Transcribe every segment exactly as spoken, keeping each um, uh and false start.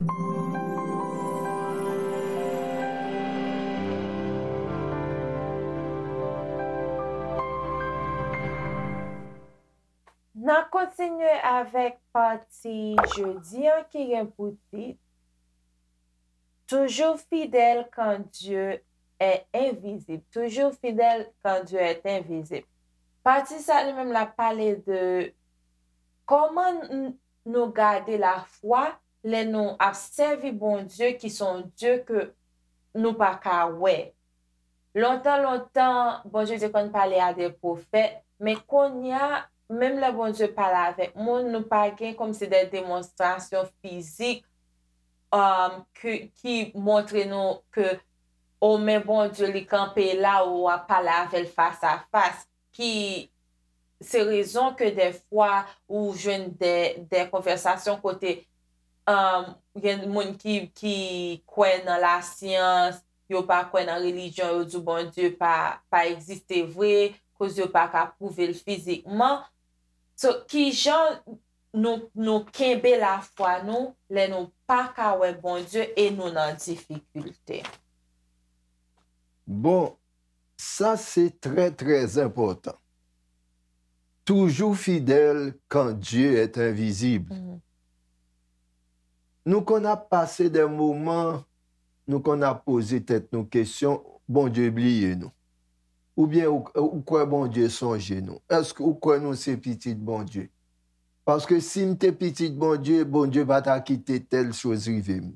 N ap kontinye avèk pati jodi an ki gen pou tit Toujours fidèle quand Dieu est invisible. Toujours fidèle quand Dieu est invisible. Pati sa li menm l ap pale de kòman n- nou gade lafwa lè nou ap sèvi Bondye ki se yon Dye ke nou pa ka wè. Lontan, lontan, Bondye te konn pale a de pwofèt, men kounye a, menm lè Bondye pale avèk moun, nou pa gen kòmsi de demonstrasyon fizik um, ki, ki montre nou ke o men Bondye li kanpe la ou w ap pale avè l fas a fas, ki se rezon ke dèfwa ou jwenn de, de konvèsasyon kote um, gen moun ki, ki kwè nan lasyans, yo pa kwè nan relijyon, yo di Bondye pa, pa egziste vre, koz yo pa ka pwouve l fizikman. So, kijan nou, nou kenbe lafwa nou lè nou pa ka wè Bondye e nou nan difikilte? Bon, sa se trè, trè enpòtan. Toujours fidèle quand Dieu est invisible. Nou konn ap pase de moman, nou konn ap poze tèt nou kesyon, Bondye bliye nou. Oubyen ou, ou kwè Bondye sonje nou? Èske ou kwè nou se pitit Bondye? Paske si m te pitit Bondye, Bondye pa ta kite tèl choz rive m.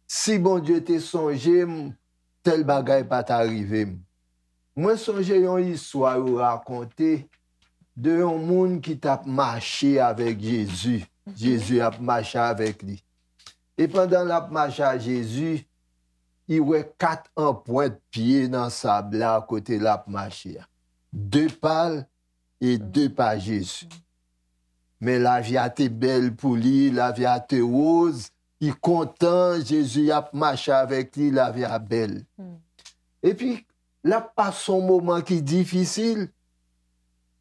Si Bondye te sonje m, tèl bagay pa ta rive m. Mwen sonje yon istwa yo rakonte de yon moun ki t ap mache avèk Jezi. Jezi ap mache avèk li. E pandan l ap mache a Jezi, li wè kat anprent pye nan sab la kote l ap mache a. De pa l e de pa Jezi. Men lavi a te bèl pou li, lavi a te woz, li kontan, Jezi ap mache avèk li, lavi a bèl. Epi, l ap pase yon moman ki difisil.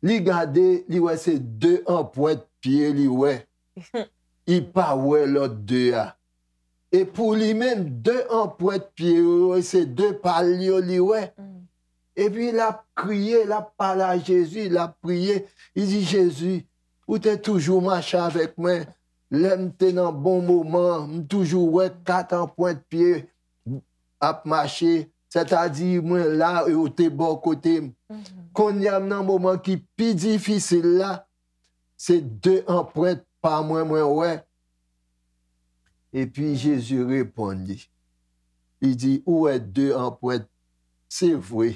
Li gade, li wè se de anprent pye li wè. Li pa wè lòt de a. E pou li menm, de anprent pye yo, se de pa l yo li wè. Epi l ap kriye, l ap pale a Jezi, l ap priye. Li di, Jezi, ou te toujou mache avèk mwen. Lè m te nan bon moman, m toujou wè kat anprent pye ap mache. Sètadi, mwen la, e ou te bò kote m. Kounye a, m nan moman ki pi difisil la, se de anprent pa mwen mwen wè. Epi Jezi reponn li. Li di, ou wè de anprent, se vre,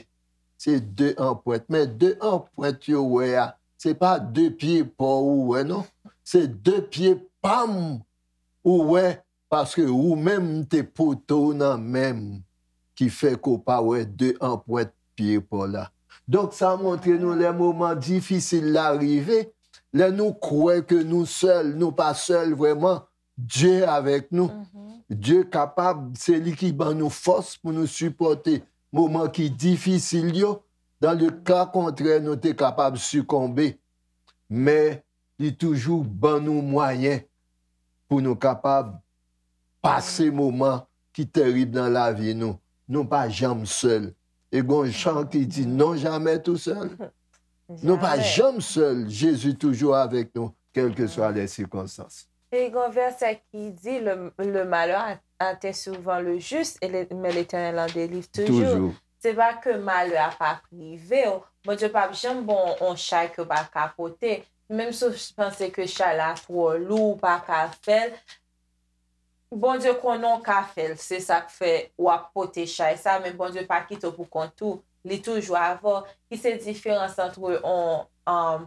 se de anprent, men de anprent yo wè a, se pa de pye pa w ou wè non, se de pye pa m ou wè, paske ou menm m te pote w nan men m, ki fè ke w pa wè de anprent pye pa w la. Donk sa montre nou lè moman difisil la rive, lè nou kwè ke nou sèl, nou pa sèl vrèman, Dye avèk nou. Dye kapab, se li ki ban nou fòs pou nou sipòte moman ki difisil yo. Dan le ka kontrè, nou te kapab sikonbe. Men li toujou ban nou mwayen pou nou kapab pase moman ki terib nan lavi nou. Nou pa janm sèl. E gon chan ki di non jamais tout seul. Nou pa janm sèl. Jezi toujou avèk nou, kèlkeswa lè sikonstans. E gon vèsè ki di, le, le malheur atteint souvent le juste, et le, mais l'Éternel en délivre toujours. Se pa ke malè a p ap rive w. Bondye p ap janm ba w yon chay ke w pa ka pote. Menm si w panse ke chay la twò lou, ou pa ka fè l, Bondye konnen w ka fè l. Se sa k fè w ap pote chay sa, men Bondye pa kite w pou kont ou. Li toujou avè w. Ki se diferans antre yon, um,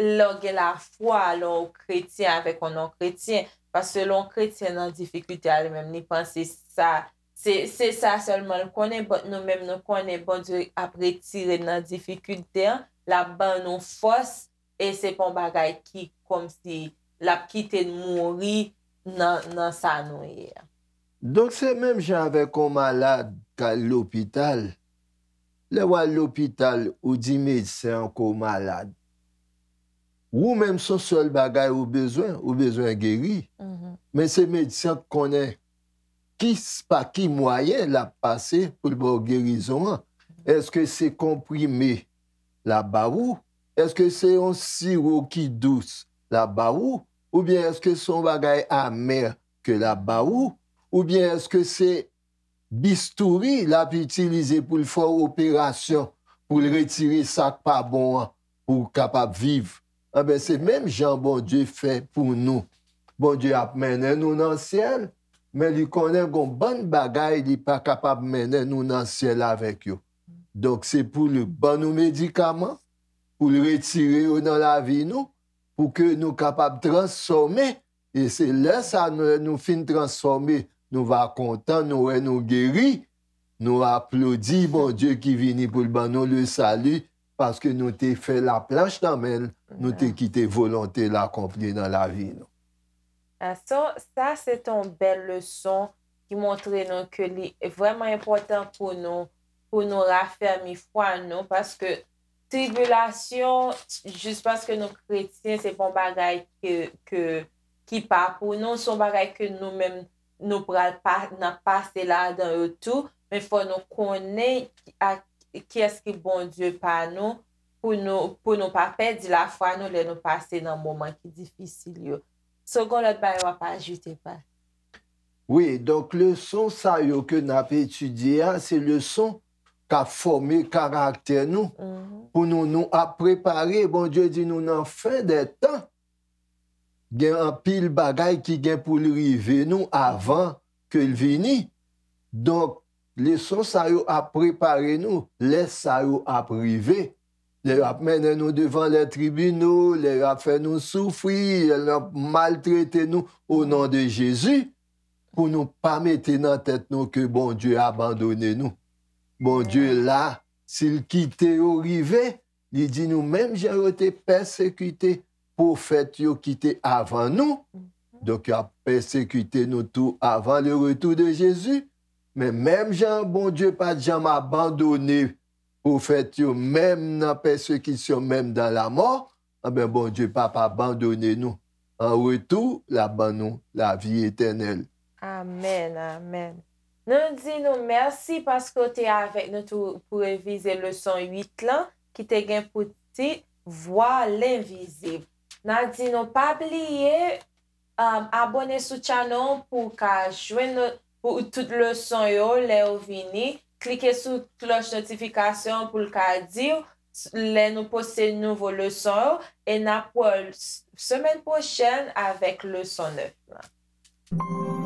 lè w gen lafwa, lè w kretyen avèk yon non-kretyen. Paske lè yon kretyen nan difikilte a, li menm, li panse sa, se, se sa sèlman l konnen, but nou menm, nou konnen Bondye ap retire n nan difikilte an, l ap ban nou fòs, e se pa yon bagay ki kòmsi l ap kite n mouri nan, nan sa nou ye a. Donk, se menm jan avèk yon malad k al lopital. Lè w al lopital, ou di medsen an ke w malad. Ou menm, se yon sèl bagay ou bezwen, ou bezwen geri. Men se medsen k konnen ki, pa ki mwayen l ap pase pou l ba w gerizon an. Èske se konprime l ap ba ou? Èske se yon siwo ki dous l ap ba ou? Oubyen èske se yon bagay amè ke l ap ba ou? Oubyen èske se bistouri l ap itilize pou l fè w operasyon, pou l retire sa k pa bon an, pou w kapab viv? Anben, se menm jan Bondye fè pou nou. Bondye ap mennen nou nan syèl, men li konnen gon bann bagay li pa kapab mennen nou nan syèl avèk yo. Donk, se pou l ban nou medikaman, pou l retire yo nan lavi nou, pou ke nou kapab transfòme. E se lè sa, nou, lè nou fin transfòme, nou va kontan, nou wè nou geri, nou aplodi Bondye ki vini pou l ban nou le sali, paske nou te fè laplanch nan men l, nou te kite volonte l akonpli nan lavi nou. Ah, so, sa se yon bèl leson ki montre nou ke li vrèman enpòtan pou nou, pou nou rafèmi fwa nou, paske tribilasyon, jis paske nou kretyen, se pa yon bagay ke, ke, ki pa pou nou, se yon bagay ke nou menm nou pral pa, n ap pase ladan yo tou, men fò nou konnen ak kiyès ki Bondye pa nou, pou nou, pou nou pa pèdi lafwa nou lè nou pase nan moman ki difisil yo. So, gon lòt bagay w ap ajoute, pa? Wi, donk leson sa yo ke n ap etidye a, se leson k ap fòme karaktè nou. Pou nou, nou ap prepare, Bondye di nou nan fen dè tan, gen anpil bagay ki gen pou l rive nou avan ke l vini. Donk, leson sa yo ap prepare nou lè sa yo ap rive. Lè y ap mennen nou devan lè tribino, lè y ap fè nou soufri, lè y ap maltrete nou, o non de Jezi, pou nou pa mete nan tèt nou ke Bondye abandone nou. Bondye la, si l kite yo rive, li di nou menm jan yo te pèsekite pwofèt yo ki te avan nou, donk y ap pèsekite nou tou avan le retour de Jezi. Men menm jan Bondye pa t janm abandone pwofèt yo, menm nan pèsekisyon, menm dan lamò, anben, Bondye p ap abandone nou. An retou, l ap ban nou lavi etènèl. Amèn, amèn. Nou di nou mèsi paske w te avèk nou tou pou revize leson uit lan, ki te gen pou tit Vwa lenvizib. N a di nou pa bliye um, abòne sou channel pou w ka jwenn pou tout leson yo lè yo vini. Klike sou klòch notifikasyon pou l ka di w lè nou poste nouvo leson yo. E n ap wè w semèn pwochèn avèk leson nèf lan.